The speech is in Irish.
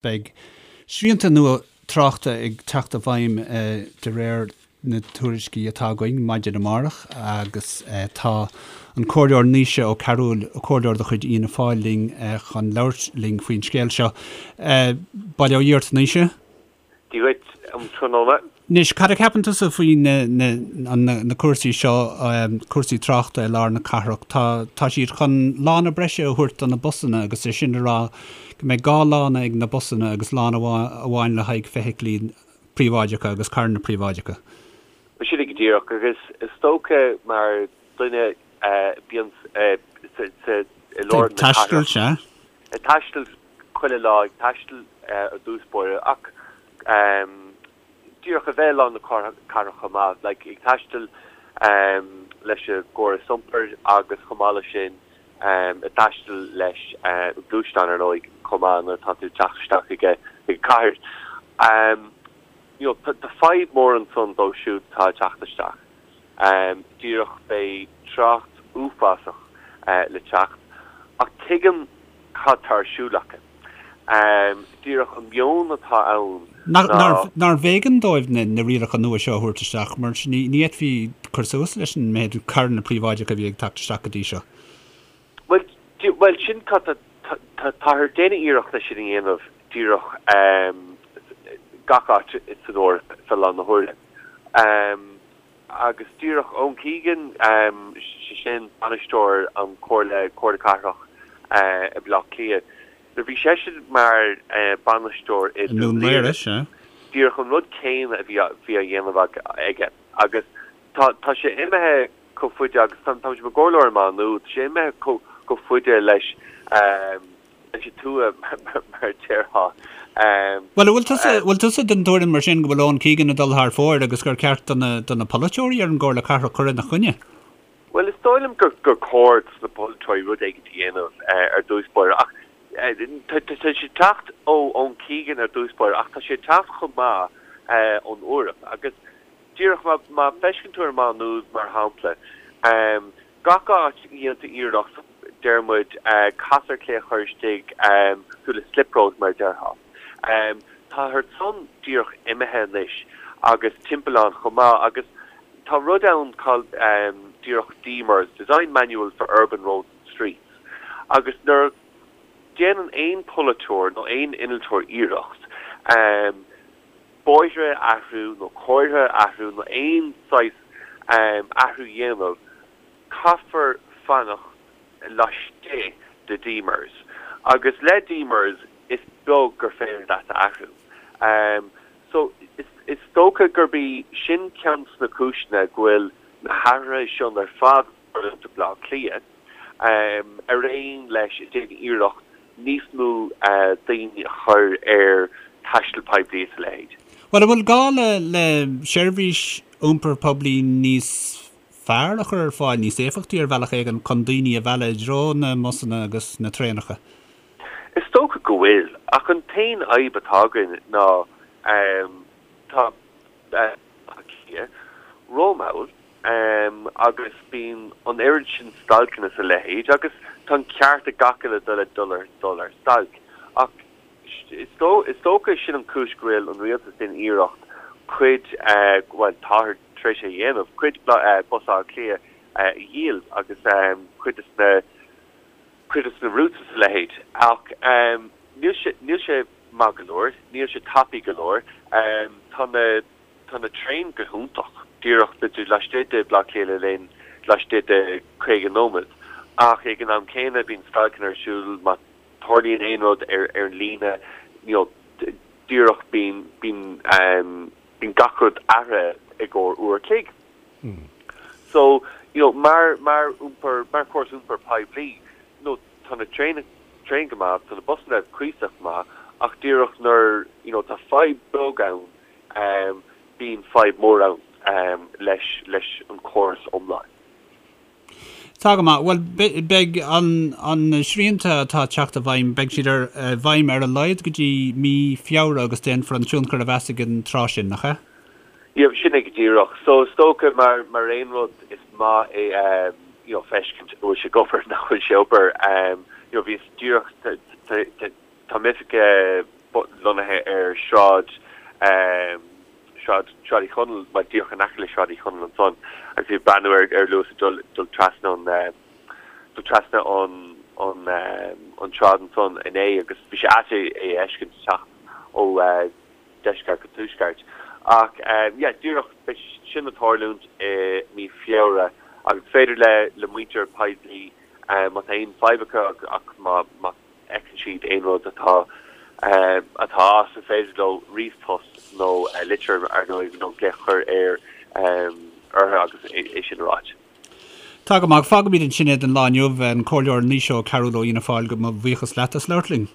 Beidh srianta nua tráchta ag teacht i bhfeidhm de réir na tuairiscí atá againn maidin amárach agus tá an Comhairleoir Naoise Ó Cearúil, Comhairleoir de chuid Fhianna Fáil linn chun labhairt linn faoin scéal seo. Bail ó Dhia ort, Naoise. Dia dhuit um tráthnóna. Anois, cad a cheapann tusa faoi na cúrsaí seo, cúrsaí tráchta i lár na cathrach? Tá, tá siad chun lána breise a thabhairt do na busanna agus é sin le rá go mbeidh 2 lána ag na busanna agus lána amháin le haghaidh feithiclí príobháideacha agus carranna príobháideacha. Sin é go díreach agus is dócha mar duine a bíonn sa, i lár na cathrach. Ag taisteal, sea. Ag taisteal chuile lá ag taisteal i dtús báire ach díreach a bheith i lár na cathrach chomh maith, like ag taisteal leis an gcóras iompair agus chomh maith leis sin ag taisteal leis an gluaisteán ar ndóigh chomh maith nuair atá tú ag teacht isteach chuig an cathair. You know tá fadhb mór ansan dóibh siúd atá ag teacht isteach. Díreach beidh trácht uafásach le teacht ach tuigim cad tá ar siúl acu. Díreach an meon atá ann ná. Nárbh éigean dóibh na rialacha nua seo a thabhairt isteach mar ní fhéadfaí cur suas leis an méid carranna príobháideacha a bhí ag teacht isteach go dtí seo. Bhuel, sin cad tá, táthar ag déanamh iarracht é sin a dhéanamh díreach gach áit san Eoraip fé láthair na huaire. Agus díreach Eoin Keegan, sé sin bainisteoir an Comhairle, Comhairle Cathrach i Baile Átha Cliath, nuair a bhí seisean mar bainisteoir i nDún Laoghaire, díreach an rud céanna a bhí á dhéanamh aige. Agus tá tá sé imithe chomh faide agus tá tá sé mar chomhairleoir i Má Nuad, tá sé imithe chomh faide leis leis an tua mar a déarfá. Bhuel, an bhfuil tusa, bhfuil tusa den tuairim mar sin go bhfuil Eoin Keegan ag dul thar fóir agus gur ceart do na, do na polaiteoirí ar an gComhairle Cathrach cur ina choinne? Bhuel, is dóigh liom gur, gur cóir dos na polaiteoirí rud éigin a dhéanamh ar dtús báire ach tá, tá sé ag teacht ó Eoin Keegan ar dtús báire ach tá sé ag teacht chomh maith ón Eoraip agus díreach má, má fheisceann tú ar Má Nuad mar shampla, Gach áit a dhéantar iarracht, deir muid, casadh ar clé a chur istigh, cosúil le slip road mar a déarfá. Táthar san díreach imithe anois agus timpeallán chomh maith agus tá rud ann called díreach DMURS, Design Manual for Urban Roads and Streets, agus nuair a déanann aon polaiteoir nó aon innealtóir iarracht bóithre a athrú nó comhartha a athrú nó aon saghas athrú a dhéanamh, caithfear fanacht laistigh de DMURS. Agus le DMURS is beag gur féidir leat a athrú. So is dócha gurb í sin ceann de na cúiseanna go bhfuil na hathruithe seo ar fad ag tarlú i mBleá Cliath. ar aon leis ag déanamh iarracht níos mó daoine a chur ar taisteal poiblí is a leithéid. Bhuel, an bhfuil gá le le seirbhís iompair poiblí níos fearr a chur ar fáil, níos éifeachtaí ar bhealach éigin, chun daoine a mhealladh i dtreo na mbusanna agus na traenacha? Is dócha go bhfuil, ach an t-aon fhadhb atá againn ná tá Baile Átha Cliath rómhall agus bíonn an oiread sin stailceanna is a leithéid agus tá an ceart ag gach uile duine dul ar dul ar stailc. Ach is dócha sin an chúis go bhfuil an rialtas ag déanamh iarracht cuid, bhuel táthar tar éis é a dhéanamh, cuid Bus Átha Cliath a dhíol agus cuid de na cuid de na routes is a leithéid. Ach níl sé níl sé maith go leor, níl sé tapaidh go leor. Tá na Tá na traein go hiontach, díreach beidh tú laistigh de Bhaile Átha Cliath le linn laistigh de 50 nóiméad, ach ag an am céanna bíonn stailceanna ar siúl má tarlaíonn aon rud ar ar an líne, you know, díreach bíonn bíonn bíonn gach rud athraithe i gcomhair uair a chloig. So, you know, mar mar iompar mar chóras iompair poiblí, you know, tá na traein traein go maith, tá na busanna cuíosach maith, ach díreach nuair, you know, tá fadhb beag ann, bíonn fadhb mór ann leis leis an córas iomlán. Tá go maith. Bhuel, beidh an na srianta atá ag teacht i bhfeidhm, beidh siad ar i bhfeidhm ar a laghad go dtí mí Feabhra agus déanfar an tionchar a mheas ag an tráth sin, nach ea? Yeah, sin é go díreach. So is dócha mar mar aon rud is maith é you know feiscint an bhfuil sé ag obair nach bhfuil sé ag obair. You know bhíos díreach tá m'oifig. lonnaithe ar Shráid Sráid Sráid Uí Chonaill, bhuel díreach in aice le Sráid Uí Chonaill ansan agus bhí ag breathnú ar ar Luas ag dul dul trasna an dul trasna an an an tsráid ansan inné agus bhí sé ait é a fheiscint ag teacht ó deisceart go tuaisceart. Ach yeah díreach beidh sin ag tarlúint i mí Feabhra agus is féidir le le muintir poiblí má tá aon fadhb acu ach má má fheiceann siad aon rud atá atá as, is féidir leo ríomhphost nó litir ar ndóigh nó glaoch a chur ar orthu agus é sin a ráit. Tá go maith. Fágfaimid ansin é don lá inniu. An Comhairleoir Naoise Ó Cearúil ó Fhianna Fáil, mo bhuíochas leat as labhairt linn.